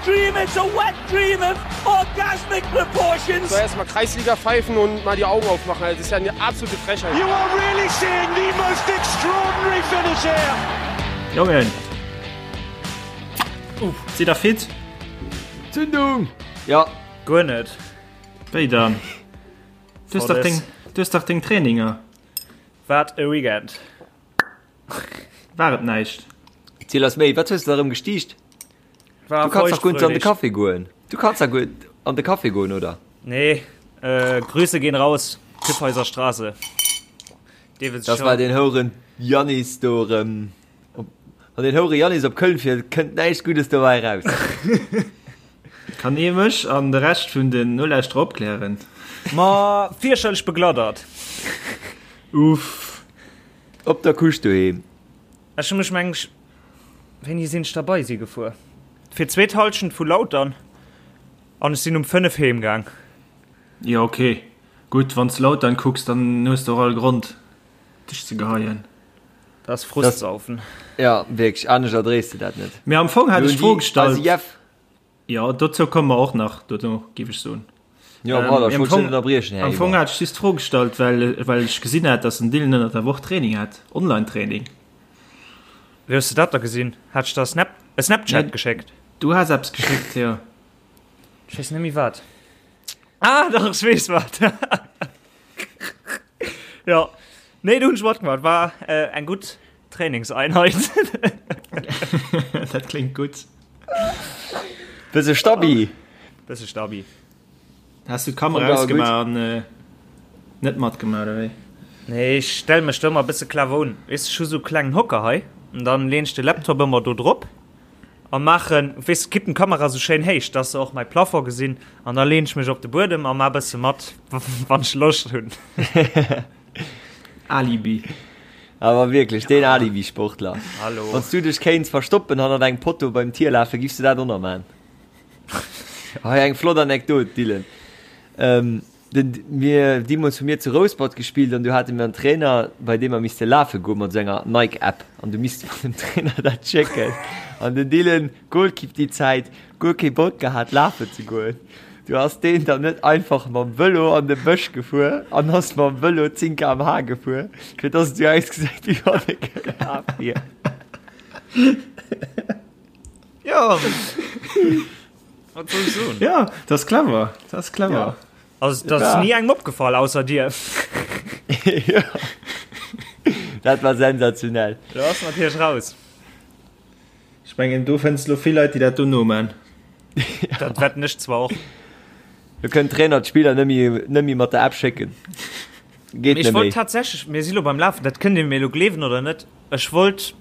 dream, it's a wet dream of orgasmic proportions. So erstmal Kreisliga pfeifen und mal die Augen aufmachen. Das ist ja eine absolute Frechheit. You are really seeing the most extraordinary finish here. Jongen! Uff, sidd der fit? Zündung! Ja. Guer net. Wéi dann? Du hues dach deng, du hues dach deng Traininger. Wat e Weekend. War et näischt? Ziel ass méi, wat hues de da rëm gestiicht? War Du kanns dach guer net an de feuchtfröhlich. Café goen. Du kanns dach guer an de Café goen, oder? Nee, äh, Grüße gehen raus, Kyffhäuser Straße. Dee Das war den Houren Jannis do rëm. Op, wann den Houre Jannis op Köln fiert, kënnt näischt Guddes dobäi raus. Kann ee mech an de Rescht vun den Nolauschterer opklären? Ma fierchterlech begladdert. Uff. Op der Couche doheem. Ech hu mech meng ech, wéini sinn ech da bei si gefuer? Fir d'zweet Halschent vu Lautern an ech sinn um 5 heem gaang. Jo ok, gutt, wann s Lautern kucks, dann hues de och all Grond dech ze geheien. Dat ass Frustsaufen. Ja wierklech, anescht erdréis de dat net. Mee am Fong hat ech d'Fro gestallt. Also Jeff. Jo, dozou komme mer och nach dono, géif ech soen. Jo, voilà, ech wollt dech net ënnerbriechen, Här Am Fong Eber. hat ech just d'Fro gestallt, well, well ech gesinn hat, dass den Dylan ënnert der Woch Training hat, Online-Training. Wéi hues de dat da gesinn? Hat ech der Snap, e Snapchat Nee. geschéckt? Du has eppes geschéckt, jo. Ech weess net méi wat. Ah, dach, ech weess wat. Jo, nee, do hunn ech matgemaach. War eng gutt Trainingseinheit. Dat kléngt gutt. Bësse Stabi. Bësse Stabi. Has du d'Kamera ausgemaach an net matgemaach, oder wéi? Nee, ech stelle mech do ëmmer e bësse clever un. Weess, ech hu sou e klengen Hocker hei an dann leen ech de Laptop ëmmer do drop a maachen, weess, kippen d'Kamera sou schéin héich, dass se och mäi Plafond gesinn an da leen ech mech op de Buedem a maa bësse mat, wann ech Loscht hunn. Alibi. Awer wierklech, deen Alibi-Sportler. Hallo. Wann s du dech kéints verstoppen hannert engem Potto beim Tier lafen, giffs du dat och nach man? Hei eng flott Anekdot, Dylan. Ähm, den, mir, deemools hu mir zu Rouspert gespillt an du hate mir en Trainer, bei deem mer misste lafe goen mat esou enger Nike-App an du misst mer dem Trainer dat schécken. An den Dylan, Goalkeep déi Zäit, guer kee Bock gehat lafen ze goen. Du ass deen dann net einfach mam Vëlo an de Bësch gefuer an ass mam Vëlo 10 km/h gefuer, fir dass et esou ausgesäit, wéi wann e gelaf wier. Jo, wat soll ech soen? Ja, dat ass clever, dat ass clever. Ja. Also, dat ass ni engem opgefall, ausser dir. Ja. Dat war sensationell. Do ass natierlech raus. Ech mengen, do fënns de lo vill Leit, déi dat do noman. Dat wetten ech zwar och. Do kënnt Trainer d'Spiller net méi, net méi mat der App schécken. Geet Mee ech net wollt méi. tatsächlech, mir si lo beim Lafen, dat kënnt Dir mir elo gleewen oder net, ech wollt,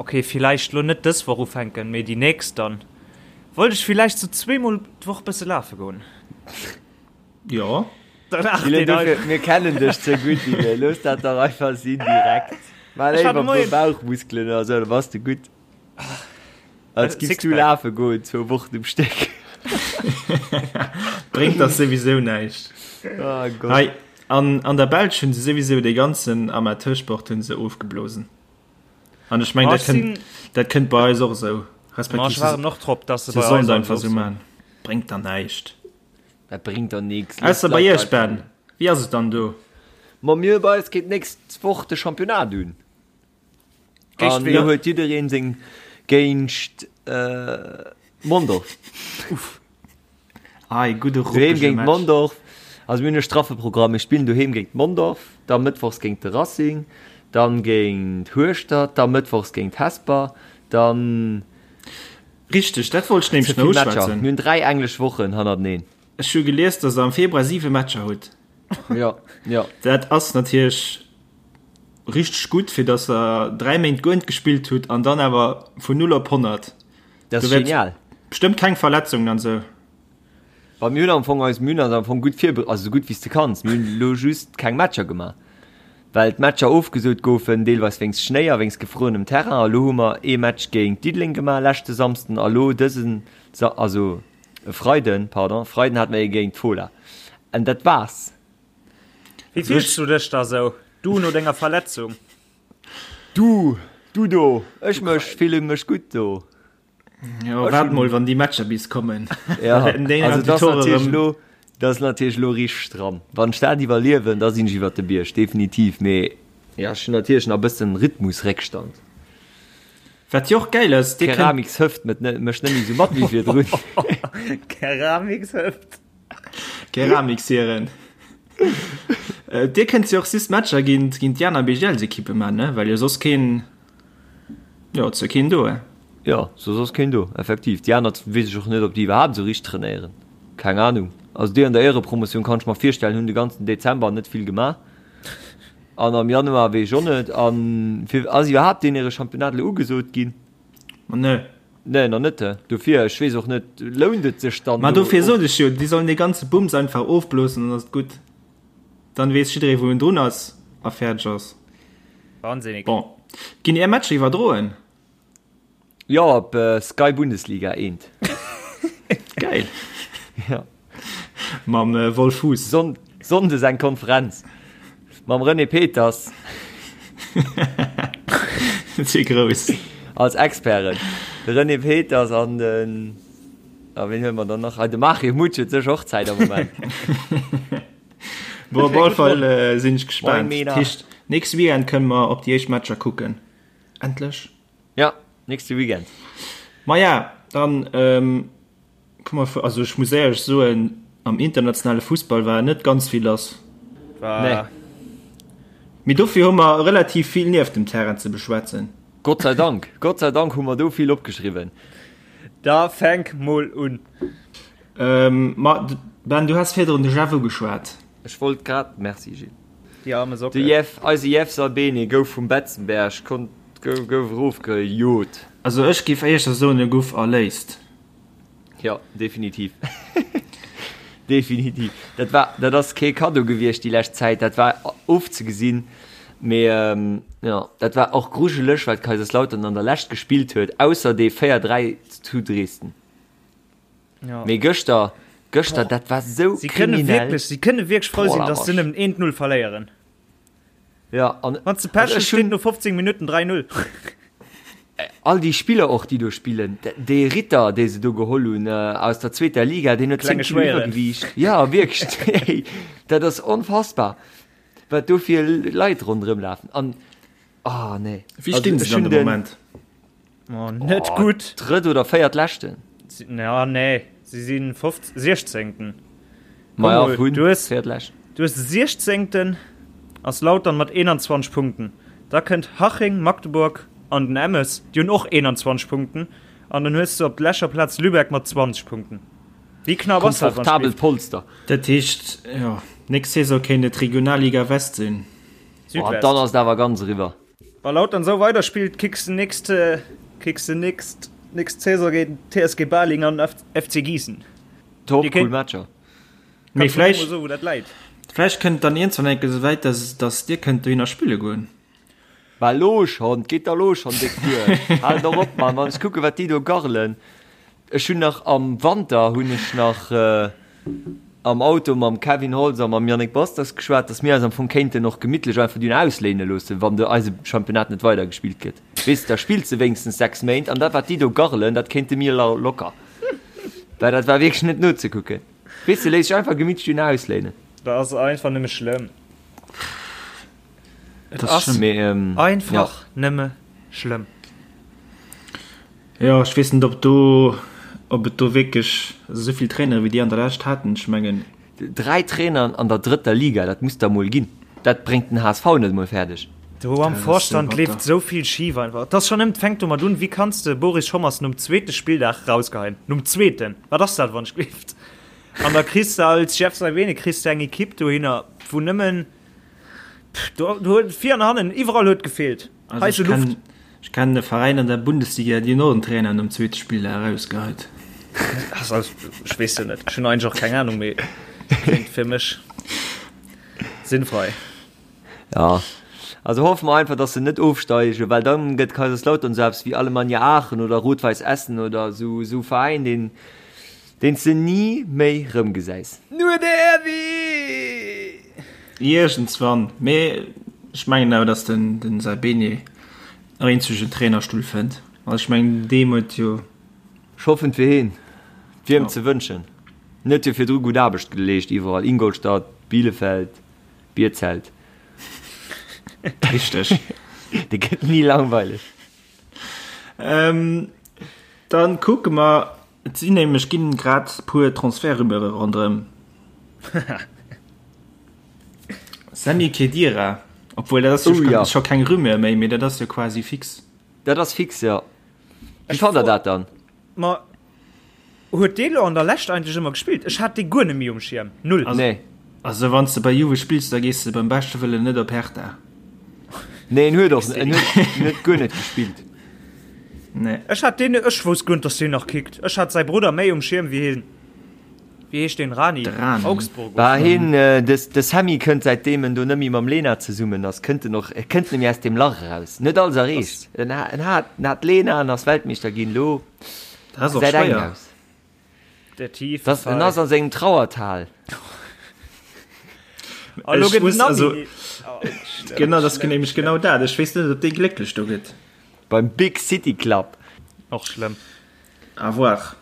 okay, villäicht lo net dës Woch ufänken, mee déi nächst dann, wollt ech villäicht sou zweemol d'Woch bësse lafe goen. Jo. Dann acht Dylan, een dofir, einfach. mir kennen dech ze gutt, Dylan. Looss dat dach einfach sinn direkt. Maach Ech war léiwer de e puer Moien. Bauchmuskelen oder sou, da bass de gutt. Als giffs du Sixpack. lafe goen, zwou Wochen um Stéck. Bréngt dach souwisou näischt. Oh Gott. Hei, an, an der Belsch hunn se souwisou dee ganzen Amateursport hunn se ofgeblosen. An ech meng, Ma dat ech kënnt, sinn, dat kënnt bei eis och esou. ma Respektiv ech se, waarden och drop, dass se se bei sollen eis et alles einfach esou ofsoen. man. Bréngt der näischt. Dat bréngt der nix. Looss Ausser bei d'Leit iech, einfach Ben. Wéi ass et dann do? Ma mir bei eis geet d'nächst Woch de Championnat un. Géint An ween? lo huet jiddereen seng géint Mondorf. Ah, ee gudde Doheem ruppege géint Match. Mondorf. Also mir hunn e straffe Programm. Mir spillen doheem géint Mondorf, da mëttwochs géint de Racing, dann géint Hueschtert, da mëttwochs géint Hesper, dann. Richteg, dat wollt ech Ze nämlech vill nach Matcher. uschwätzen. Mir hunn 3 englesch Wochen hannerteneen. Ech hu gelies, dass der am Februar 7 Matcher hutt. Jo, jo. Dat ass natierlech richteg gutt, fir dass der 3 Méint guer net gespillt hutt an dann awer vun 0 op 100. Dat Do ass wäert genial. bestëmmt keng Verletzungen an esou. Wa mir hunn am Fong eis, mir hunn eis am Fong gutt virbe-, also esou gutt wéi s de kanns. Mir hunn elo just keng Matcher gemaach, well d'Matcher ofgesot goufen, deelweis wéinst Schnéi a wéinst gefruerenem Terrain. A lo hu mer ee Match géint Diddeleng gemaach leschte Samsden a lo dësen Sa-, also e Freiden, pardon, e Freiden hate mer ee géint d'Fola. An dat war's. Wéi fills du dech da sou, du no denger Verletzung? Du, du do, ech mech, fillen mech gutt do. Jo, waart mol, wann déi Matcher bis kommen. Ja, also dat ass natierlech elo, dat ass natierlech elo richteg stramm. Wann ech dat iwwerliewen, da sinn ech iwwert de Bierg, definitiv. Mee ja, ech hunn natierlech nach e bëssen Rhythmusréckstand. Wat jo och gäil ass, dir kënnt. Keramikshëft mécht net méi esou mat wéi virdrun. Keramikshëft. Keramiksieren. Dir kënnt jo och just Matcher géint géint déi aner BGL-Ekippe man, ne? Well jo soss keen, jo, et ass jo keen do, eh? Jo, soss ass keen do, effektiv. Déi aner weess ech och net, ob déi iwwerhaapt esou richteg trainéieren. Keng Anung. Also déi an der Éierepromotioun, kann ech mer virstellen, hunn de ganzen Dezember net vill gemaach. An am Januar weess ech och net. An fir ass iwwerhaapt deen hire Championnat elo ugesot ginn? Ma nee. Nee, nach net. Dofir, ech weess och net, lount et sech dann Ma dofir sot ech jo, déi sollen dee ganze Bums einfach ofblosen, dann ass et gutt. Dann weess jidderee wou en drun ass a fäerdeg ass. Wahnsinnig. Bon, ginn är Matcher iwwerdroen? Jo, op Sky Bundesliga eent. Geil. Ja. Mam Wolf Fuss. Sonn Sonndes eng Konferenz mam René Peters. Ze grouss. Als Experten. De René Peters an den, a wien huele mer dann nach? Ah, de Mario Mutsch huet sécher och Zäit am Moment. Bon, op alle Fall sinn ech gespaant. Moin Mena. Dat heescht, nächste Weekend kënne mer op déi éischt Matcher kucken. Endlech. Ja, nächste Weekend. Maja, dann ähm, komm mal, also ech muss éierlech soen, am internationale Fussball war net ganz vill lass. War Nee. Mee dofir hu mer relativ vill nieft dem Terrain ze beschwätzen. Gott sei Dank, Gott sei Dank hu mer do vill opgeschriwwen. Da fänk mol un. Ähm, ma Ben, du has virdrun déjà vu geschwat. Ech wollt grad, merci Gilles. Déi arme Socke. De Jeff, eise Jeff Saibene gouf vum Betzenberg, konnt, gouf erofgejot. Also ech géif éischter soen, e gouf erléist. Jo, definitiv. Definitiv. Dat war, dat ass kee Kaddo gewiescht déi lescht Zäit, dat war ofzegesinn. Mee jo, dat war och grujeleg, wat Kaiserslautern an der Lescht gespillt huet, ausser dee 4, 3 zu Dresden. Ja. Mee gëschter, gëschter, dat war sou Sie kënne kriminell. wierklech, sie kënne wierklech frou sinn, Boah, dass se nëmmen 1-0 verléieren. Ja, an Wann s de Pech also hues, ech hunn steet no 15 Minutten 3-0. all déi Spiller och, déi do spillen, dee Ritter, dee se do geholl hunn aus der zweeter Liga, deen huet 10 Klenge Kilo Schwéieren. Iwwergewiicht. Ja, wierklech, hey, dat ass onfassbar, wat do fir Leit ronderëm lafen. An, ah, nee. Wéi stinn Also, se ech dann hunn de den Moment? Oh, net oh, gutt. Drëtt oder véiert leschten. Ja, nee, si sinn 16. Ma ja, vun du hues, véiertleschten. Du hues 16. ass Lautern mat 21 Punkten. Da kënnt Haching, Magdeburg an den Emmes, déi hunn och 21 Punkten. An dann hues du op leschter Plaz Lübeck mat 20 Punkten. Wéi knapp ass dat? Komfortabelt Polster. Dat heescht, jo, nächst Saison kéint et Regionalliga West sinn. Südwest. Oh, dann ass et awer ganz eriwwer. Wa Lautern esou weider spillt, kicks de nächst kicks de nächst nächst Saison géint TSG Baling an FC Gießen. Top, cool Matcher. Mee vläicht so, wou dat läit. Vläicht kënnt dann iergendwann eng Kéier esouwäit, dass dass dir kënnt dohinner spille goen. Bah lo schonn, 't geet der lo schonn déck duer. Hal dach op, Mann, wann ech kucken, wat déi do garrelen. Ech hunn nach am Wanter hunn ech nach am Auto mam Kevin Holtz a mam Yannick Basters geschwat, dass mir eis am Fong kéinten och gemittlech einfach dunn ausléine loossen, wann de eise Championnat net weidergespillt gëtt. Weess de, da spills de wéinstens 6 Méint an dat wat déi do garrelen, dat kéinte mir locker. Well dat war wierklech net nozekucken. Weess de, léiss dech einfach gemittlech dunn ausléinen. Dat ass einfach nëmme schlëmm. Et ass einfach nëmme schlëmm. Jo, ech weess net, ob do, ob et do wierklech esou vill Trainere wéi déi an der Lescht haten. Ech mengen. Dräi Traineren an der drëtter Liga, dat muss der emol ginn. Dat bréngt den HSV net emol fäerdeg. Do am Vorstand leeft esou vill schif einfach. Et ass schonn ëm, et fänkt domat un, wéi kanns de Boris Schommers nom zweete Spilldag rausgeheien? Nom zweeten! Wat ass dat, wann ech gleeft? An da kriss de als Jeff Saibene kriss de eng Ekipp dohinner, wou nëmmen, do huet vir an hannen, iwwerall huet gefeelt. Also ech kennen, ech kennen e Veräin an der Bundesliga, déi hunn och en Trainer nom zweete Spilldag erausgeheit. Also, ech weess jo net, ech hunn eigentlech och keng Ahnung, mee kléngt fir mech sinnfrei. Ja, also hoffe mer einfach, dass se net ofsteigen, well dann gëtt Kaiserslautern sou eppes wéi Alemannia Aachen oder Rot-Weiss Essen oder sou, sou Veräin, deen, Deen s de ni méi rëmgesäis. Nur de Erwi! Iergendswann, mee ech mengen awer, datt den den Saibene nach eenzegen Trainerstull fënnt. Also ech mengen deem huet jo. Ech hoffen fir heen. Et wier em ze wënschen. En huet jo virdru gutt Aarbecht geleescht iwwerall, Ingolstadt, Bielefeld, Bierzelt. Richteg. Dee gëtt ni langweileg. Dann kucke mer, et sinn nämlech ginn grad puer Transfertrumeure ronderëm. Sami Khedira, obwuel dat ass jo Oh ja. scho keng Rumeur méi, mee dat ass jo quasi fix. Dat ass fix, jo. Wéi fannt der dat dann? Ma huet dee lo an der Lescht eigentlech ëmmer gespillt? Ech hat dee guer net méi um Schierm. Null. Also, Nee. also wann s de bei Juve spills, da gees de beim beschte Wëllen net op Hertha. Nee, en huet och en huet, en huet guer net gespillt. Nee. Ech hat deen, ech wousst guer net, dass deen nach kickt. Ech hat säi Brudder méi um Schierm wéi hien. Wéi heescht deen? Rani? De Rani. Augsburg Bah, oder? hien, de, de Sammy kënnt säitdeem en do net méi mam Lena zesummen ass, kënnt en och, e kënnt net méi aus deem Lach eraus. En huet alles erreecht. En ha, en hat, en hat d'Lena an ass Weltmeeschter ginn. Lo Dat ass och gesäit eng schwéier. aus. Der tiefe Das, en ass Fall. a sengem Trauertal. A lo Ech gëtt muss, den Nami. also, Oh, schlëmm, genau, dat ass schlëmm, nämlech schlëmm. genau dat. Ech weess net, ob dee glécklech do gëtt. Beim Big City Club. Och schlëmm. À voir.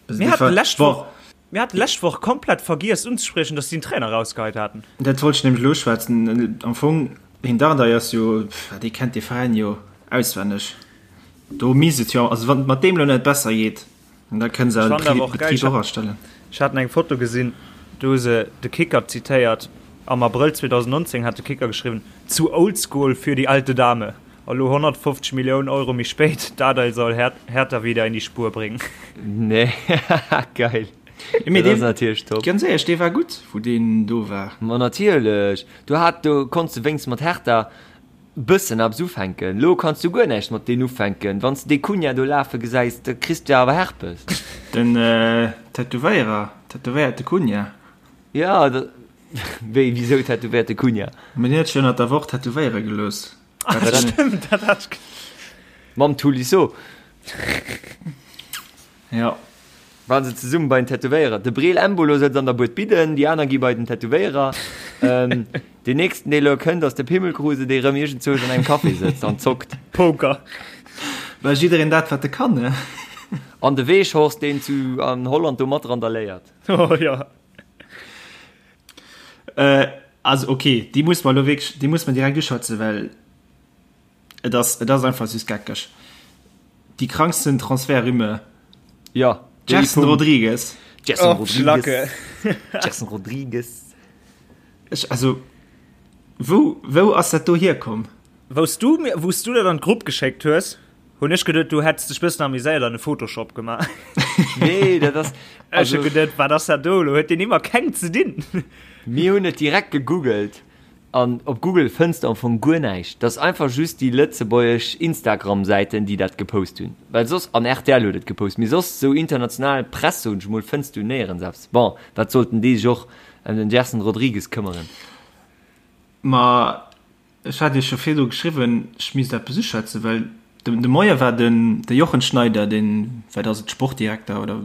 Mir haten d'lescht Woch, mir haten d'lescht Woch komplett vergiess unzespriechen, dass si den Trainer rausgeheit haten. Dat wollt ech nämlech elo uschwätzen. Am Fong, den Dardai ass jo, dee kennt dee Veräin jo auswenneg. Do misst et jo, also wann et mat deem elo net besser geet, da kënne se Ech awer fand de awer och geil, Betrib ech och astellen. Ech haten eng Foto gesinn, do hu se de Kicker zitéiert. Am Abrëll 2019 hat de Kicker geschriwwen, Zu oldschool für die alte Dame. A lo 150 Milliounen Euro méi spéit, Dardai soll Hertha wieder in die Spur bringen. Nee, geil. Mee Dat ass dee, natierlech top. ganz éierlech, dee war gutt, wou deen do war. Ma natierlech, do hat, do konns de wéinst mat Hertha bëssen eppes ufänken. Lo kanns du guer näischt mat deen ufänken. Wann s de dee Cunha do lafe gesäis, da kriss du awer Herpes. Den Tätowéierer, tätowéierte Cunha. Ja, da, wéi, wisou tätowéierte Cunha? Mee deen huet sech ënnert der Woch tätowéiere gelooss. Ah, Dat stimmt, dat hat ich. Mam Tolisso. Ja. Waren se zesummen bei den Tätowéierer. De Breel Embolo sëtzt an der Bued Bidden, déi aner gi bei den Tätowéierer. Ähm, deen nächsten, dee lo kënnt, ass de Pimmelkruse, dee rëm iergendzwousch an engem Café sëtzt an zockt. Poker. Well jiddereen dat, wat e kann, ne? An de Weghorst, deen zu an Holland do mat randaléiert. Oh ja. Äh, also okay, déi muss mer elo wierklech, déi muss mer direkt uschwätzen, well et ass, et ass einfach süss geckeg. Déi kranksten Transfertrumeur. Ja, déi Gerson vum Rodrigues. Gerson Oh, Rodrigues. Schlacke. Gerson Rodrigues. Ech, also, wou, wou ass dat do hierkomm? Wous du mir, wous du dat an d'Grupp geschéckt hues, hunn ech geduet, du hätts dech bëssen amuséiert an e Photoshop gemaach. Nee, dat ass, Ech also, hu geduet, wat ass dat do elo? Huet deen ëmmer keng ze dinn? Mir hunn et direkt gegoogelt an op Google fënns de am Fong guer näischt. Dat ass einfach just déi lëtzebuergesch Instagram-Säiten, déi dat gepost hunn. Well soss, an rtl huet et gepost, mee soss esou international Press, soen ech mol, fënns du néierens eppes. Bon, wat sollten déi sech och ëm den Gerson Rodrigues këmmeren? Ma Ech hat Iech jo virdu geschriwwen, ech misst eppes uschwätzen, well de Moie war den de Jochen Schneider, deen, wat ass et, Sportdirekter oder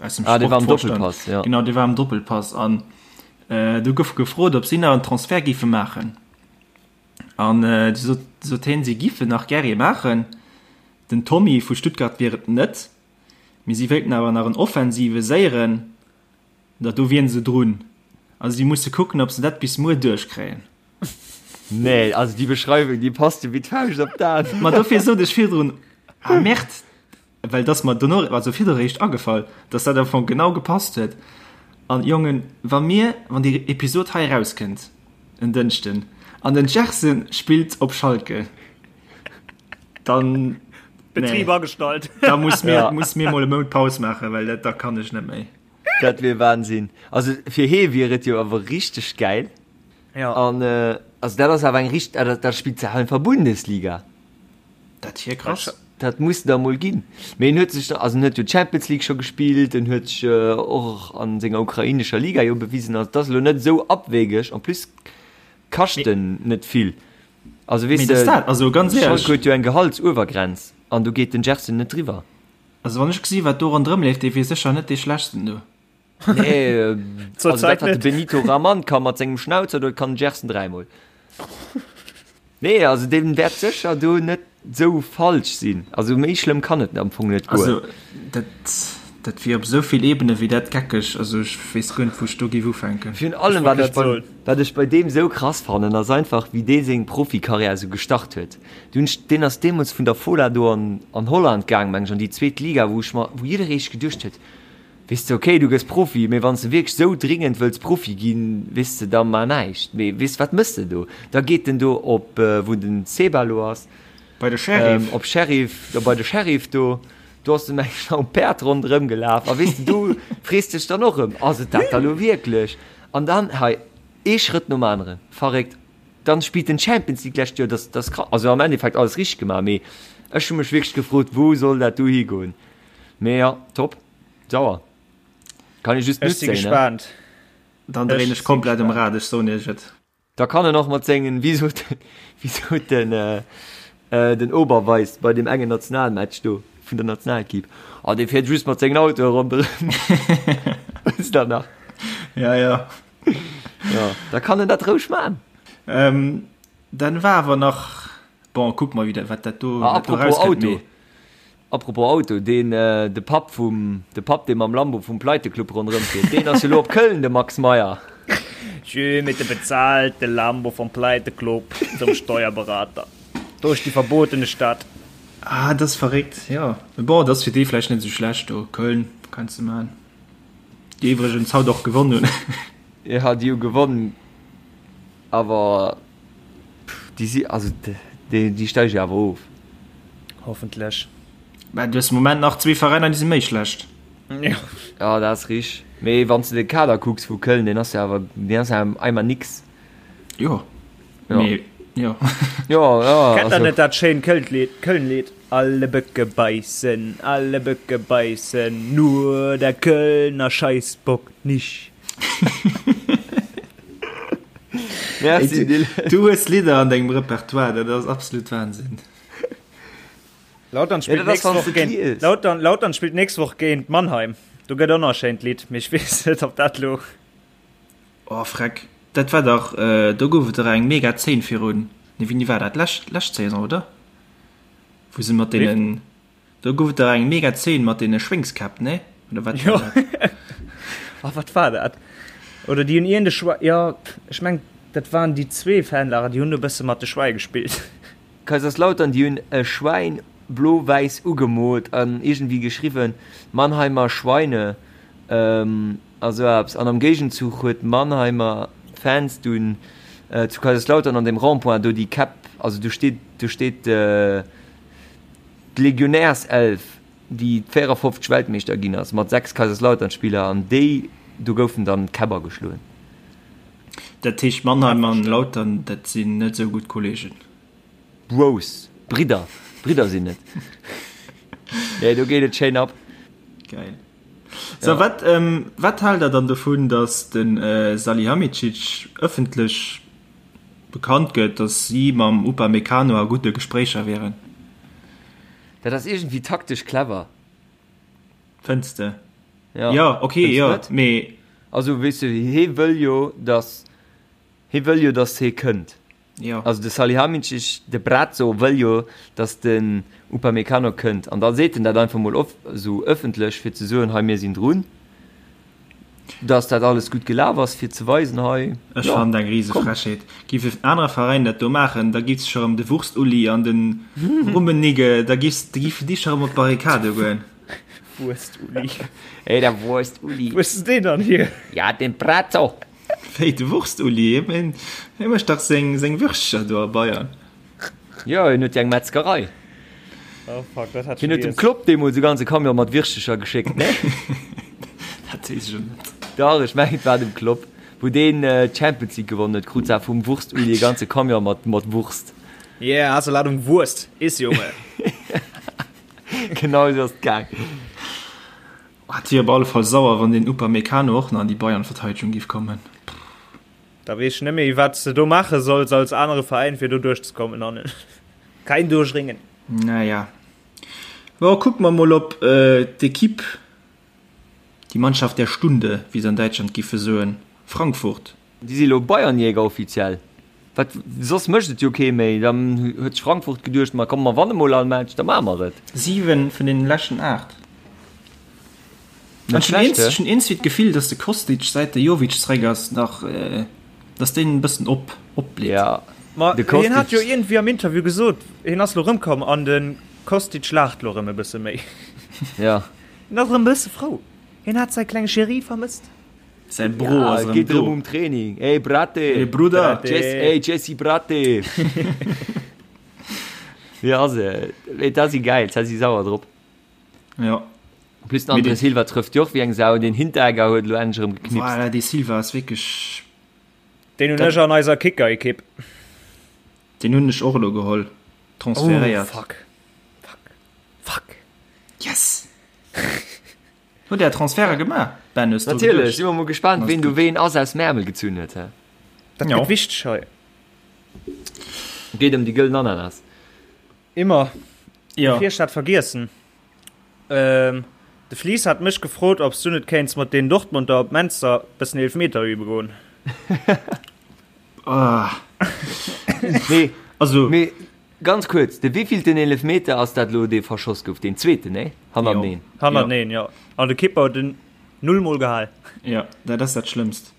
aus dem Ah, dee war am Sportvorstand, Doppelpass, ja. genau, dee war am Doppelpass an do gouf gefrot, ob si nach en Transfert géife maachen. An du sot, sot hien, si giffen nach gär ee maachen. Den Tommy vu Stuttgart wier et net, mee si wéilten awer nach en offensive séieren, Dat do wieren se drun. Also si musse kucken, ob se dat bis muer duerchkréien. Nee, also déi Beschreiwung, déi passt jo wéi d'Fauscht op d'An. Ma dofir sot ech virdrun, ah Merde, well et ass mer dono, also virdru eréischt agefall, dass dat am Fong genau gepasst huet. An Jongen, wa mir, wann déi Episod hei erauskënnt en Dënschden an den Gerson spillt op Schalke, dann, Betrib nee, agestallt. da muss mir, Ja. muss mir mol e Mount Paus maachen, well dat, da kann ech net méi. Dat wier Wahnsinn. Also fir hee wier et jo awer richteg gäil. Ja. An äh, also dat ass awer eng richt, dat, dat spillt se einfach Bundesliga. Dat wier krass. Dat muss da mol ginn. Mee en huet sech, also en huet jo d'Champions League scho gespillt, en huet sech äh, och an senger ukrainescher Liga jo bewisen. Also dat ass elo net esou abwegeg. En plus kascht en net vill. Also weess Mee dat de, dat, also ganz Schalke éierlech. huet jo eng Gehaltsuewergrenz an do geet den Gerson net driwwer. Also wann ech gesi wat do ronderëm leeft, dee wier sécher net dee schlechtsten do. Nee, Zur also dat Zäit wat de net. Benito Raman ka mat sengem Schnauzer, dat kann den Gerson dräimol. Nee, also dee wäert sécher do net. Sou falsch sinn. Also méi schlëmm kann et am Fong net goen. Also dat, dat wier op esou vill Ebene wéi dat geckeg. Also ech weess guer net wou ech do géif ufänken. Virun allem wat ech bei, wat ech bei deem sou krass fannen ass einfach wéi dee seng Profikarriär sou gestart huet. Du hunn ech, deen ass deemools vun der Fola do an an Holland gaang meng ech an déi zweet Liga wou ech mer, wou jidderee sech geduecht huet, weess de ok du gëss Profi, mee wann s de wierklech sou dringend wëlls Profi ginn, weess de da mar näischt. Mee weess de wat mëss de do? Da geet en do op wou den Seba lo ass, Bei de Sheriff. Op Sheriff, jo bei de Sheriff do, do ass en meng ech am Päerd ronderëm gelaf a weess de do frees dech dann och erëm, ass et dat da lo wierklech? An dann hei ee Schrëtt nom aneren, verréckt. Dann spillt en Champions League d'lescht Joer, dat ass krass, also am Endeffekt alles richteg gemaach, mee ech hu mech wierklech gefrot, wou soll dat do higoen? Mee jo, top, sauer, kann ee just Ech si nutzéien, ne? gespaant. Dann dréin ech komplett um Rad, ech soen iech et. Da kann en och mat sengen, wéi sot, wéi sot den, den Oberweis bei deem engen Nationalmatch do vun der Nationalequipe, oh dee fiert just mat sengen Autoe ronderëm. Wësst der nach? Ja, ja. Ja, da kann en dat roueg man. Ähm, dann war awer nach, bon, kucke mer wieder, wat dat do, Ah, wat do apropos rauskënnt, Auto. mee. Apropos Auto, deen, de Papp vum, de Papp dee mam Lambo vum Pleiteklubb ronderëm fiert, deen ass jo lo op Köln, de Max Meyer. Schön mit dem bezahlte Lambo vom Pleiteklubb zum Steuerberater durch die verbotene Stadt. Ah, dat ass verréckt, jo. Mee bon, dat ass fir déi vläicht net esou schlecht do, Köln, kanns de man. Déi iwwregens haut och gewonn hunn. Jo, déi hu gewonn, awer Déi si, also déi, déi steige awer of. Hoffentlech. Mä du hues de Moment nach zwee Veräiner, déi si méi schlecht. Jo. Jo, dat ass richteg. Mee wann s de de Kader kucks vu Köln, deen ass jo awer, deen ass jo einmal nix. Jo. Jo. Mee, jo. Jo, jo. Kennt der net dat schéint Köln-Lied, Köln-Lied? Alle Böcke beißen, alle Böcke beißen, nur der Kölner Scheißbock nicht. Merci, Dylan. Du hues Lidder an dengem Repertoire, dat ass absolut Wahnsinn. Lautern spillt Ja, dat ass, nächst wann Woch s de géint liest. Lautern, Lautern spillt nächst Woch géint Mannheim. Do gëtt och nach e schéint Lidd, mee ech weess net, ob dat lo. Oh freck, dat war dach, do gouf et dach eng mega Zeen virun, nee wéini war dat, lescht, lescht Saison oder? Wou se mat deenen, Do gouf et dach eng mega Zeen mat deene Schwéngskäpp, nee? Oder wat Jo. war dat? Ah, wat war dat? Oder déi hunn iergend e Schwei, jo, ech meng, dat waren déi zwee Fanlager, déi hunn e bësse mat de Schwäi gespillt. Kaiserslautern, déi hunn e Schwäin blo-wäiss ugemoolt an iergendwéi geschriwwen, Mannheimer Schweine a sou eppes. An am Géigenzuch huet Mannheimer Fans dunn zu Kaiserslautern an dem Rond-point do déi Käpp, also do steet, do steet, D'Legionärself, déi 54 Weltmeeschter ginn ass, mat 6 Kaiserslautern-Spiller, an déi do goufen dann d'Käpp ageschloen. Dat heescht Mannheim an Lautern, dat sinn net esou gutt Kollegen? Bros, Bridder, Bridder sinn et. Nee, do geet et schéin ab. Geil. So, wat, wat haalt der dann dovun, datt de Salihamidzic ëffentlech Bekannt gëtt, datt si mam Upamecano a gudde Gespréicher wieren. Dat ass iergendwéi taktesch clever. Fënns de? Ja. Jo, ok, Fënns jo, net? mee. Also, weess de, hee wëll jo, datt, hee wëll jo, datt hee kënnt. Jo. Also de Salihamidzic, de Brazzo wëll jo, datt den Upamecano kënnt. An da seet en dat einfach mol of, esou ëffentlech, fir ze soen, hei mir sinn drun. Dass dat alles gutt gelaf ass, fir ze weisen, hei, Ech jo, fannen dat eng riese komm. Frechheet. Giff en anere Veräin dat do maachen, da giff sech erëm de Wurst-Uli an den Rummenigge, da giffs, da giffen déi scho erëm op d'Barrikade goen. Wurst-Uli. Hey, der Wurst-Uli. Wou hues de deen dann hier? Ja, den Brazzo. Wéi, de Wurst-Uli? Hie hie mécht dach seng, seng Würstcher do a Bayern. Jo, hien huet jo eng Metzgerei. Oh fuck, dat hat Hien huet dem Klopp deemools e ganze Camion mat Wirschtecher geschéckt, ne? Dat weess ech elo net. Dach, ech mengen et war dem Klopp. Wou deen d'Champions League gewonnen huet, krut se vum Wurst-Uli e ganze Camion mat mat Wurst. Yeah, hast du Ladung Wurst, iss Junge! Genau esou ass et gaang. Oh, et wier op alle Fall sauer, wann den Upamecano och nach an déi Bayern-Verteidegung géif kommen. Da weess ech net méi wat s de do maache solls als anere Veräin fir do duerchzekommen hannen. Kein Durchringen. Naja. Bon, kucke mer mol op d'Equipe, die Mannschaft der Stunde, wéi se an Däitschland giffe soen, Frankfurt. Déi si lo Bayernjäger offiziell. Wat, soss mécht et jo kee méi. Dann huet sech Frankfurt geduecht, ma komm, mer wanne mol all Match, da maache mer et. 7 vun deenen leschten 8. Net Ech hunn schlecht, ech hunn iergendwéi d'Gefill, datt de Kostic, säit de Jovic zeréck ass, nach, datt deen e bëssen op, opblitt. Ja, Ma de hien hat jo Kostic. iergendwéi am Interview gesot, hien ass lo rëmkomm an de Kostic laacht lo rëm e bësse méi. Ja. Hien ass rëm e bësse frou. Hien hat säi klenge Chéri vermësst. Säi Bro Ja, ass et erëm geet do. erëm um Training. Ey, Brate! Ey, Brudder! Brate! Jess, ey, Jesse Brate! Wéi ass et? Mee dat si gäil, dat si sauer drop. Ja. En plus den André Silva trëfft jo och wéi eng Sau, den Hinteregger huet elo endlech erëm geknipst. Voilà, dee Silva ass wierklech. Deen hunn ech an eiser Kicker-Ekipp. Deen hunn ech och elo geholl, transferéiert. Oh, fuck. Fuck. Fuck. Yes! Hutt Är Transferte gemaach, Ben? Hues du Natierlech, geduecht? si mer mol gespaant, ween do ween ass aus dem Äermel gezunn huet, hä? Dat Jo. gëtt wichteg hei. Geet ëm déi gëllen Ananas. Immer. Jo. Bevir ech dat vergiessen, ähm, de Flies hat mech gefrot, ob s du net kéints mat den Dortmunder op Menster bëssen Eelfmeter übe goen. Ah. Nee, Also, mee ganz kuerz, de wéivillten Eelefmeter ass dat elo, dee verschoss gouf? Deen zweeten, nee? Hannerteneen. Hannerteneen, jo. An de Kipper huet en null mol gehal. Jo, dat ass dat Schlëmmst.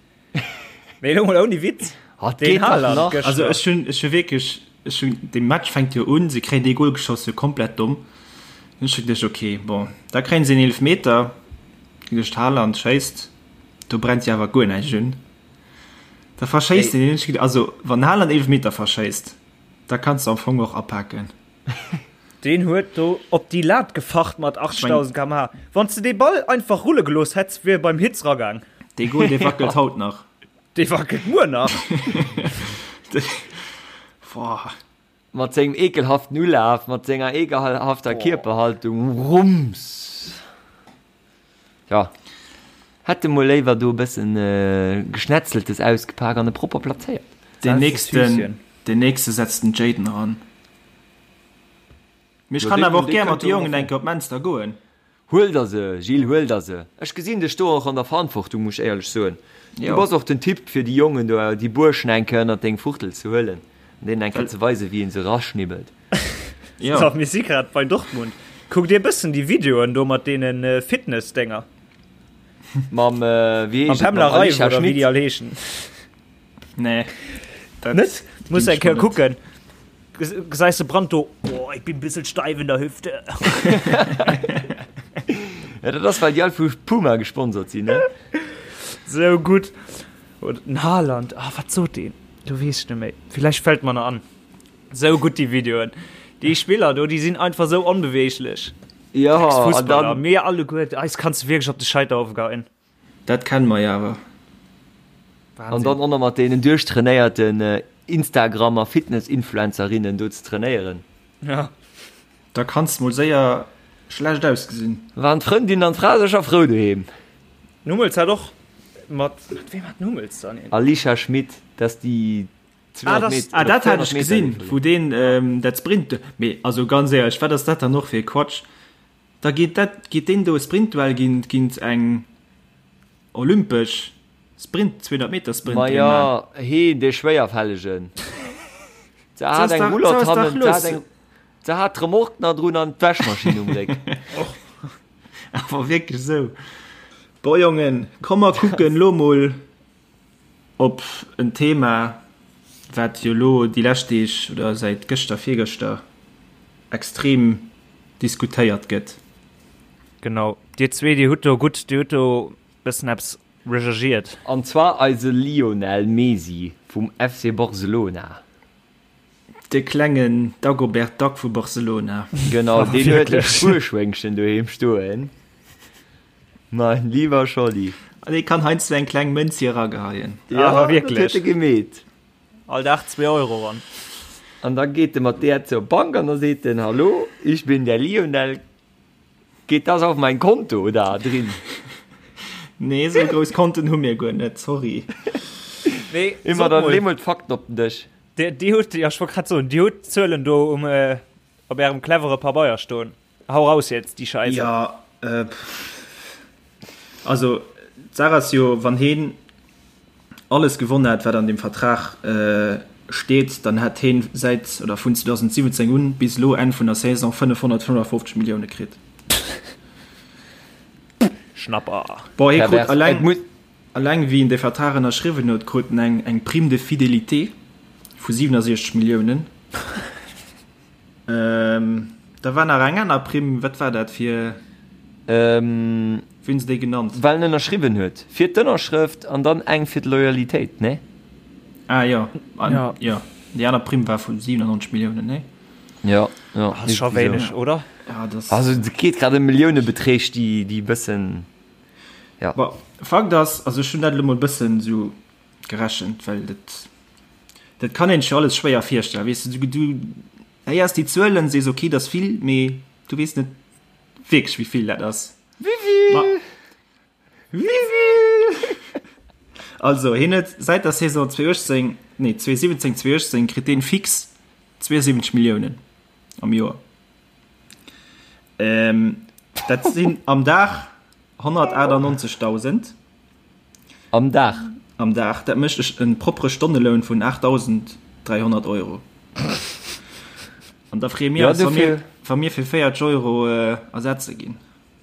Mee elo mol ouni Witz, Oh, et deen geet dach Haaland nach. gëschter. Also ech hunn, ech hu wierklech, ech hunn, de Match fänkt jo un, se kréien dee Goal geschoss, jo komplett domm. Hunn ech geduecht, ok, bon, da kréien se en Eelefmeter, geduecht, Haaland schéisst, do brennt jo awer guer näischt un. Da verschéisst en deen, hunn ech geduecht, also wann Haaland Eelefmeter verschéisst, da kanns de am Fong och apaken. Deen huet do op déi Lat gefacht mat 80.000 km/h. Wann s de dee Ball einfach rulle gelooss hätts, wier e beim Hitz ragaang. Dee Goal, dee wackelt haut nach. Dee wackelt muer nach. Boah. Mat sengem ekelhaften Ulaf, mat senger ekelhafter Kierperhaltung, Rums! Jo, hätt e mol léiwer do e bëssen Geschnetzeltes ausgepak an e propper plazéiert. Deen nächsten, deen nächste setzt den Jayden eran. Mee ech kann awer och gär mat de Jongen eng Kéier op Menster goen. Huel der se, Gilles, huel der se. Ech gesinn dech do och an der Verantwortung, muss ech éierlech soen. Du bass och den Typ fir déi Jongen do, déi Buerschen eng Kéier ënnert deng Fuchtel ze huelen an deenen eng Kéier ze weisen, wéi een se eraschnibbelt. Jo. So, mir si grad bei Dortmund. Kuck dir bëssen déi Videoen do mat deene Fitness-Dénger. Mam, wéi Mam heescht et, mam Pamela Reif Alicia oder wéi Schmit. déi all heeschen. Nee. Dat Net? Muss ginn eng ech mer Kéier net. kucken. Gesäis de Brandt do, Oh, ich bin bissel steif in der Hüfte. Ja, dat ass, well déi all vu Puma gesponsert sinn, ne? Sou gutt. Oder den Haaland, ah, wat sot deen? Do weess ech net méi. Villäicht fält mer nach an. Sou gutt déi Videoen. Déi Spiller do, déi sinn einfach sou onbeweeglech. Ja, an Fussballer, dann. mir alleguer, eis kanns du wierklech op de Scheiterhaufe geheien. Dat kenne mer jo awer. An dann och nach mat deenen duerchtrainéierten Instagram a Fitness-Influencerinnen do ze trainéieren. Ja. Da kanns mol séier schlecht ausgesinn. Waren d'Frëndin an d'Fra sécher frou doheem. Den Hummels hat och mat, mat weem hat den Hummels dann een? Alicia Schmit, dat ass déi 200 Meter, Ah, dat hat 400 ech Meter gesinn, Leeferin. wou deen dat Sprint, mee also ganz éierlech, wat ass dat dann och fir e Quatsch? Da geet dat, geet deen do e Sprintduell géint, géint eng olympesch Sprint, 200 Meter Sprinterin Ma man. jo, heen, dee Schwéierfällegen. Se Se hat ass eng dach, se Roulotte ass dach hannen, se hat lues. eng, se hat d'Remorque nach drun an d'Wäschmaschinn um Réck. Awer wierklech esou. Bon Jongen, komm mer kucken lo mol op en Thema, wat jo lo déi lescht Deeg oder säit gëschter, virgëschter extrem diskutéiert gëtt. Genau, dir zwee, dir hutt do gutt, dir hutt do bëssen eppes recherchiert. An zwar eise Lionel Mesi vum FC Barcelona. De klengen Dagobert Duck vu Barcelona. Genau, deen huet e Spuerschwéngchen doheem stoen. Mein lieber Scholli. An dee kann heiansdo eng kleng Mënz hier erageheien. Ja, Awer wierklech. Dat huet e gemeet. All Dag zwee Euro ran. An da geet e mat där zur Bank an da seet en, Hallo, ich bin der Lionel, geht das auf mein Konto da drin? Nee, esou grouss Konten hu mir guer net, sorry. Nee, Immer sot dann mol. lee mol d'Fakten op den Dësch. Dir, dir hutt, ja, ech wollt grad soen, dir hutt d'Zuelen do um, äh, op ärem clevere Pabeier stoen. Hau raus jetzt, déi Scheisse. Ja, äh, also d'Saach ass jo, wann heen alles gewonnen hätt, wat an deem Vertrag äh, steet, dann hätt heen säit oder vun 2017 un bis elo Enn vun der Saison 555 Millioune kritt. Schnapper. Bon, hie krut alleng, alleng wéi en de Vertrag ënnerschriwwen huet, krut en eng, eng Prime de fidélité vu 67 Milliounen. Ähm, da war nach eng aner Primm, wat war dat fir? Ähm, Wéi hunn se déi genannt? Well en ënnerschriwwen huet. Fir d'Ënnerschrëft an dann eng fir d'Loyalitéit, nee? Ah jo, an, ja. jo. Déi aner Primm war vu 97 Milliounen, nee? Ja, ja. Ass scho wéineg, oder? Ja, das. Also et geet grad ëm Milliounebeträg, déi, déi e bëssen, ja. Bon, Fakt ass, also ech hunn dat elo mol e bëssen esou gerechent, well dat, dat kann een sech jo alles schwéier virstellen, weess de, du, du héiers déi Zuelen, sees ok, dat ass vill, mee du weess net wierklech, wéi vill dat ass. Wéivill? Wéivill? Also, hien huet säit der Saison 2018, nee 2017, 2018 kritt deen fix 72 Milliounen am Joer. Ähm, dat sinn am Dag 198.000. Am Dag? Am Dag. Dat mécht e propre Stonneloun vun 8.300 Euro. An da freeë mir eis, wa mir, wa mir fir 40 Euro ersetze ginn.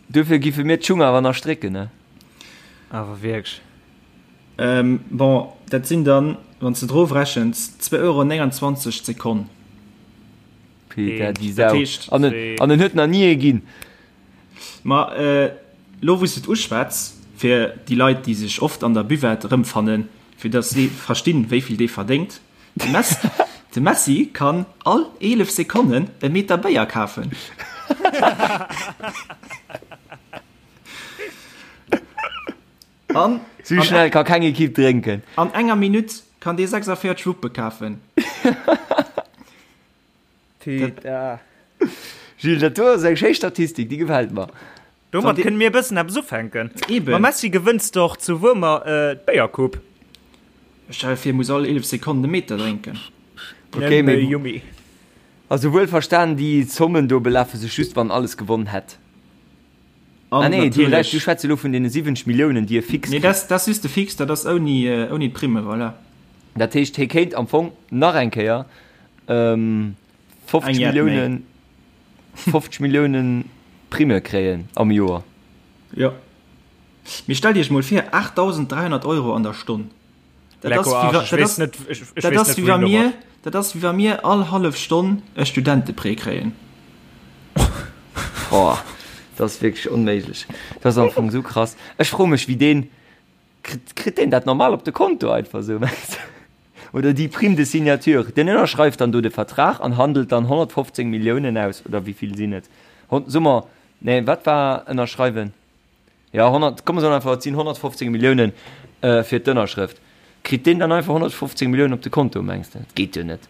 Duerfir giffe mir d'Schung awer nach strécken, ne? Awer wierklech. Bon, dat sinn dann, wann s de et erofrechens, 2,29 Euro d'Sekonn. Peter, déi Sau. An en huet nach ni ee ginn. Ma elo wou s de et uschwätz, fir déi Leit, déi sech oft an der Buvette erëmfannen, fir datt si verstinn, wéi vill dee verdéngt, de Messi, de Messi kann all 11 Sekonnen e Meter Béier kafen. An Sou schnell ka keng Ekipp drénken. An enger Minutt kann dee 46 Wuppe kafen. Peter. Gilles, dat do ass eng schéi Statistik, déi gefält mer. Domat kënne mir e bëssen eppes ufänken. Eben. Mam Messi gewënns de och zu Wuermer d'Béiercoupe. Stell dir vir, e muss all 11 Sekonnen e Meter drénken. Okay, mee Yummy. Also wuel verstan, déi Zommen do belafe sech just, wann alles gewonn hätt. An Ah nee, du, natierlech. du schwätz elo vun deene 70 Milliounen, déi e fix Nee, kritt. dat ass just de Fix, dat ass ouni, ouni d'Primme, voilà. Dat heescht, hie kéint am Fong nach eng Kéier 50 Eng Jett méi. Milliounen, 50 Milliounen Primme kréien am Joer. Jo. Mee stellt Iech mol vir, 8.300 Euro an der Stonn. Dat ass wéi wa, dat ass, dat ass wéi wa mir, dat ass wéi wa mir all hallef Stonn e Studenteprêt kréien. Boah, dat ass wierklech onméiglech. Dat ass am Fong esou krass. Ech froe mech, wéi deen, kritt, kritt deen dat normal op de Konto einfach esou, mengs de? Oder déi Prime de signature, deen ënnerschreift dann do de Vertrag an handelt dann 115 Milliounen aus, oder wéi vill sinn et? Hon, soe mer, nee, wat war ënnerschreiwen? Jo, 100, komm mer soen einfach, et sinn 115 Milliounen fir d'Ënnerschrëft. Kritt deen dann einfach 115 Milliounen op de Konto, mengs de? Dat geet jo net.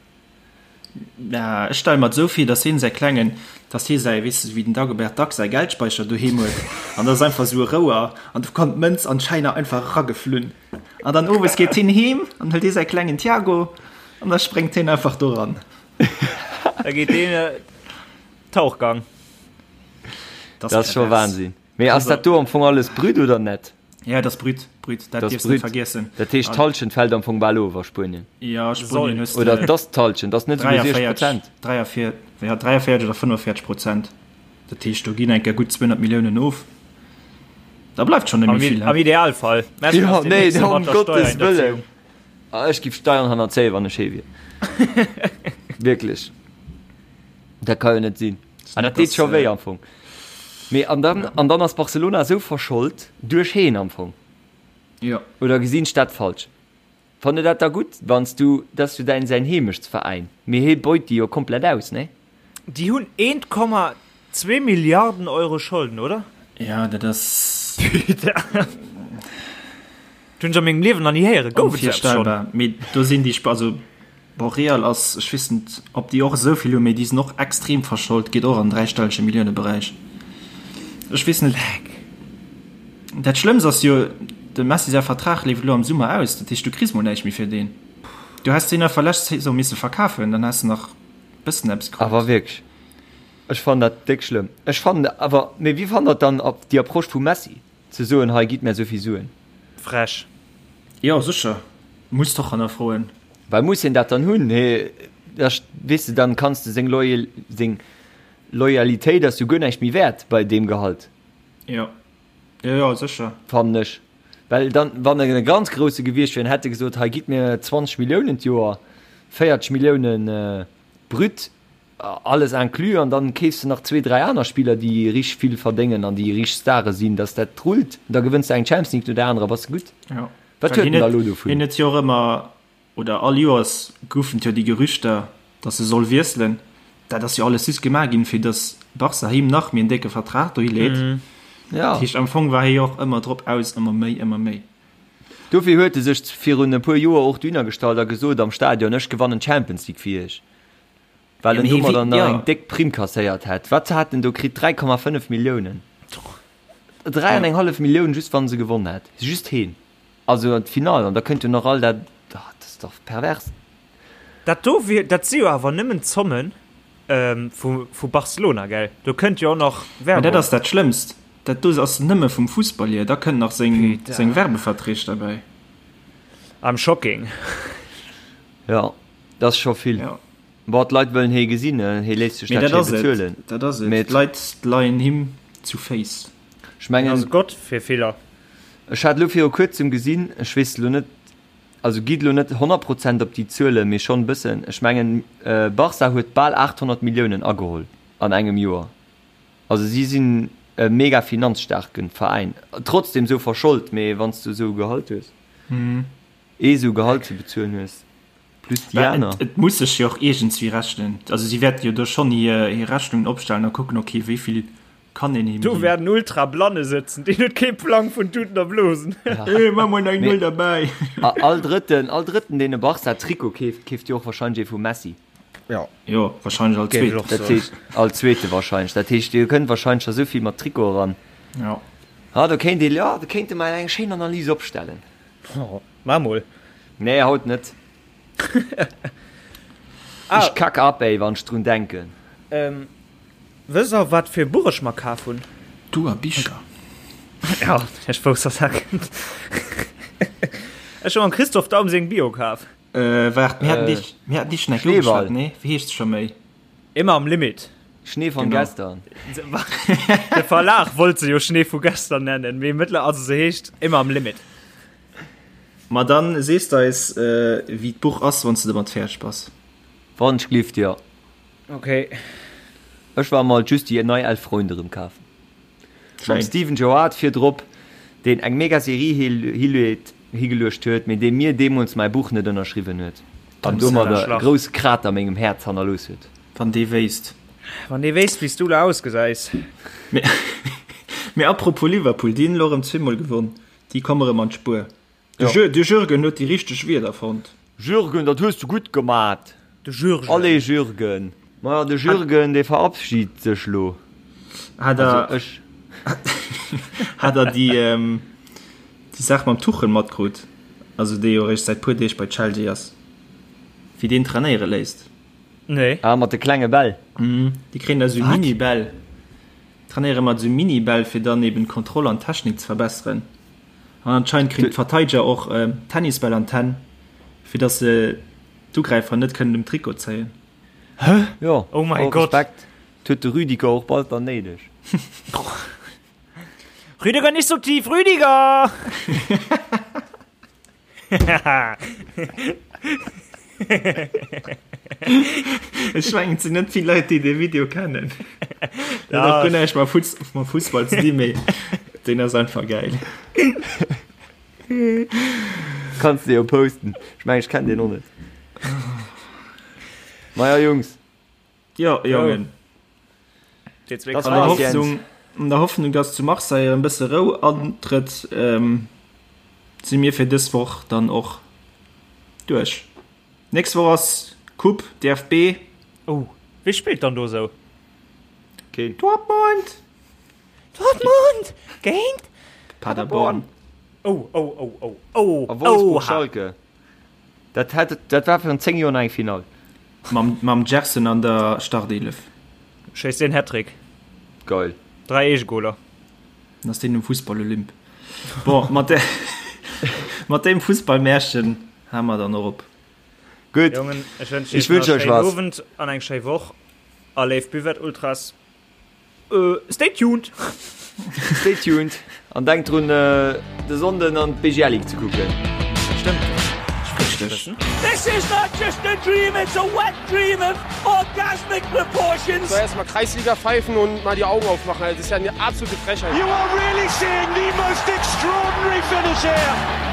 Na, ech stelle mer et esou vir, dass hien säi klengen, dass hie säi, weess de, wéi den Dagobert Duck säi Geldspeicher doheem huet, an dat ass einfach esou e Rouer, an do kommt d'Mënz an d'Schäiner einfach erageflunn. An dann owes geet hien heem an hëlt hie säi klengen Tiago an da spréngt hien einfach doran. Da geet deen Tauchgang. Dat ass scho Wahnsinn. Mee ass dat do am Fong alles brut oder net? Ja, dat ass brut, brut, dat dierfs net vergiessen. Dat heescht d'Hallschent fält am Fong bal of a Spuenien? Ja, Spuenien hues de. Oder et ass d'Hallschent, ass net esouguer 60 Prozent? 43, ja, 43 oder 45 Prozent. Dat heescht, do ginn eng Kéier gutt 200 Milliounen of. Da bleift schonn net méi vill. Am Idealfall. Jo, nee, ëm Gottes Wëllen. Ech giff Steieren hannerzéien, wann ech hee wier. Wierklech. Dat ka jo net sinn. An dat deet scho wéi am Fong. Mee an dann, an dann ass Barcelona esou verschold duerch heen am Fong. Jo. Oder gesinn ech dat falsch? Fannt der dat da gutt, wann s du, dat ass jo däin, säin Heemechtsveräin, mee hee beut déi jo komplett aus, nee? Déi hunn 1,2 Milliarden Euro Scholden, oder? Ja, dat ass. Dat hunn ech a mengem Liewen nach ni héieren. Gouf et esou eppes schonn? Onvirstellbar. Mee do sinn déi, also Bon, Real ass, ech weess net, ob déi och esou vill hunn, mee déi sinn och extrem verschold, geet och an den dräistellege Milliouneberäich. Ech weess net. Dat Schlëmmst ass jo, dem Messi säi Vertrag leeft elo am Summer aus, dat heescht, du kriss mol näischt méi fir deen. Du häss deen einfach lescht Saison misse verkafen, dann häss de nach e bëssen eppes krut. Awer wierklech, ech fannen dat déck schlëmm. Ech fannen awer, mee wéi fannt der dann déi Approche vum Messi, ze soen, hei gitt mär esou vill Suen? Frech. Jo, sécher, muss d'och hannerfroen. Well muss hien dat dann hunn? Hee, da weess de, dann kanns de seng Loyal, seng Loyalitéit ass jo guer näischt méi wäert bei deem Gehalt. Jo, jo, jo, sécher. Fannen ech. Well dann, wann en e ganz grousse gewiescht wier, hätt e gesot, hei gitt mir 20 Milliounen d'Joer, 40 Milliounen brut, alles inclus, an dann keefs de nach zwee, dräi aner Spiller, déi richteg vill verdéngen an déi richteg Stare sinn, dass dat rullt, da gewënns de eng Champions League no där anerer, bass de gutt. Jo. Wat huet en da elo dovun? Hien huet jo och ëmmer, oder all Joers goufen et jo déi Gerüchter, datt e soll wiesselen. Dat ass jo alles just gemaach ginn, fir datt Barca him nach méi en décke Vertrag dohi leet. Ja. Dat heescht, am Fong war hie jo och ëmmer drop aus, ëmmer méi, ëmmer méi. Dofir huet e sech virun e puer Joer och dohinner gestallt a gesot am Stadion, Ech gewannen d'Champions League fir iech. Well en domadder nach eng déck Primm kasséiert hätt. Wat hat en do kritt? 3,5 Milliounen. 3 an eng hallef Millioun just wann se gewonn hätt. Just heen. Also an d'Finall an da kënnt jo nach all dat, ah, dat ass dach pervers. Dat do wier, dat si jo awer nëmmen d'Zommen vu vu Barcelona, gell? Do kënnt jo och nach Mä dat ass dat Schlëmmst. Dat do ass nëmme vum Fussball hier. Da kënnt nach seng seng Werbeverträg derbäi. I'm shocking. Jo, dat ass scho vill. Jo. Bon, d'Leit wëllen hee gesinn, hee léisst sech Mee dat dat schéi ass et. bezuelen. Dat ass et. Mee et. D'Leit leien him zu Féiss. Ech mengen. Hien ass e Gott fir viller. Ech hat elo viru kuerzem gesinn, ech weess elo net, also gitt elo net 100 Prozent op déi Zuelen, mee schonn e bëssen, ech mengen Barca huet bal 800 Milliounen ageholl an engem Joer. Also si sinn e mega finanzstaarke Veräin, trotzdem esou verschold, mee wann s du esou e Gehalt hues, ee esou Gehalt ze bezuelen hues. Plus déi aner. Et muss sech jo och iergendswéi rechnen. Also si wäerte jo do schonn hir Rechnungen opstellen a kucken, okay, wéi vill kann een him Do ginn. wäerten Ultra-Blanne sëtzen, deen huet kee Plang vun Tuten a Blosen. Hey, maa mol nach eng Null derbäi. All Drëtten, all Drëtten, deen e Barca-Trikot keeft, keeft jo och warscheinlech ee vum Messi. Jo. Jo, warscheinlech all Géif ech Zweeten. och Dat soen. heescht, all Zweete warscheinlech. Dat heescht, dir kënnt warscheinlech scho sou vill mat Trikote eran. Jo. Ah, do kéint ee, jo, do kéinte mer eng schéin Analys opstellen. Maa mol. Nee, haut net. Ah. Ech kack ab, ey, wann ech drun denken. Ähm, wësst der, wat fir e Buch ech mer kaf hunn? Du a Bicher. Ja, ech wousst, dass dat kënnt. Ech hu mam Christoph Daum seng Bio kaf. Äh, waart, mir haten dich, mir haten dich schon eng Kéier Schneeball. ugeschwat, nee? Wéi heescht se scho méi? Immer am Limit. Schnee von Genau. gestern. De Verlag wollt se jo Schnee vu gestern nennen, mee mëttler, also se heescht Immer am Limit. Ma dann sees de eis, wéi d'Buch ass, wann s de domat fäerdeg bass. Wann ech glift, jo. Ok. Ech war mol just déi nei Elf Freunde rem kafen. Mam Schéin. Steven Gerrard virdrop, deen eng mega Serie higeluecht huet, mee dee mir deemools mäi Buch net ënnerschriwwen huet an domadder e grousse Krater a mengem Häerz hannerlooss huet. Wann dee wéisst. Wann dee wéisst, wéi s du elo ausgesäis. Mee apropos Liverpool, déi hunn elo erëm zweemol gewonn. Déi komme rëm an d'Spuer. De de Jürgen huet déi richteg Wierder fonnt. Jürgen, dat hues du gutt gemat! De Jürgen. Allez Jürgen! Maja, de Jürgen, dee verabschied sech lo. Hat der, Also ech. hat der déi, déi Saach mam Tuchel matkrut? Also dee jo eréischt säit puer Deeg bei Chelsea ass. Wéi deen trainéiere léisst. Nee. Ah, mat de klenge Bäll. Déi kréien da sou Mini-Bäll. Trainéiere mat esou Mini-Bäll fir dann eben d'Kontroll an d'Technik ze verbesseren. An anscheinend kréien d'Verteideger och Tennisbäll an d'Hänn, fir dass se d'Ugräifer net kënnen um Trikot zéien. Hä? Jo, Oh mäi all Gott. Respekt. Dat huet de Rüdiger och bald dann néideg. Rüdiger nicht so tief, Rüdiger! Ech mengen et sinn net vill Leit déi dee Video kennen. Dat huet och guer näischt mam Fuss mam Fussball ze dinn, mee deen ass einfach gäil. Kanns de jo posten. Ech mengen ech kennen deen och net. Maja Jungs. Jo, Jongen. Das An der war's, Jens. Hoffnung, an der Hoffnung, dass zu Marseille erëm bësse Rou antrëtt, ähm, si mir fir dës Woch dann och duerch. Nächst Woch ass Coupe, DFB. Oh, wie spillt dann do sou? Keen. Dortmund! Dortmund géint Paderborn. Oh, oh, oh, oh, oh, A Wolfsburg oha. Schalke. Dat hat, dat war virun 10 Joer nach eng Finall. Mam, mam Gerson an der Startelef. Schéisst een Hattrick. Geil. 3 Eegegoler. Dann ass deen um Fussball-Olymp. Bon, mat de, mat deem Fussballmärchen hale mer dann och op. Gutt. Jongen, ech wënschen Ech iech nach wënsch e euch schéinen was. Owend an eng schéi Woch. A léif Buvette Ultras, stay tuned! Stay tuned an denkt drun de Sonnden an d'BGL Ligue ze kucken. Stëmmt. Richteg. This is not just a dream, it's a wet dream of orgasmic proportions. So erstmal Kreisliga pfeifen und mal die Augen aufmachen. Das ist ja eine absolute Frechheit. You are really seeing the most extraordinary finish here.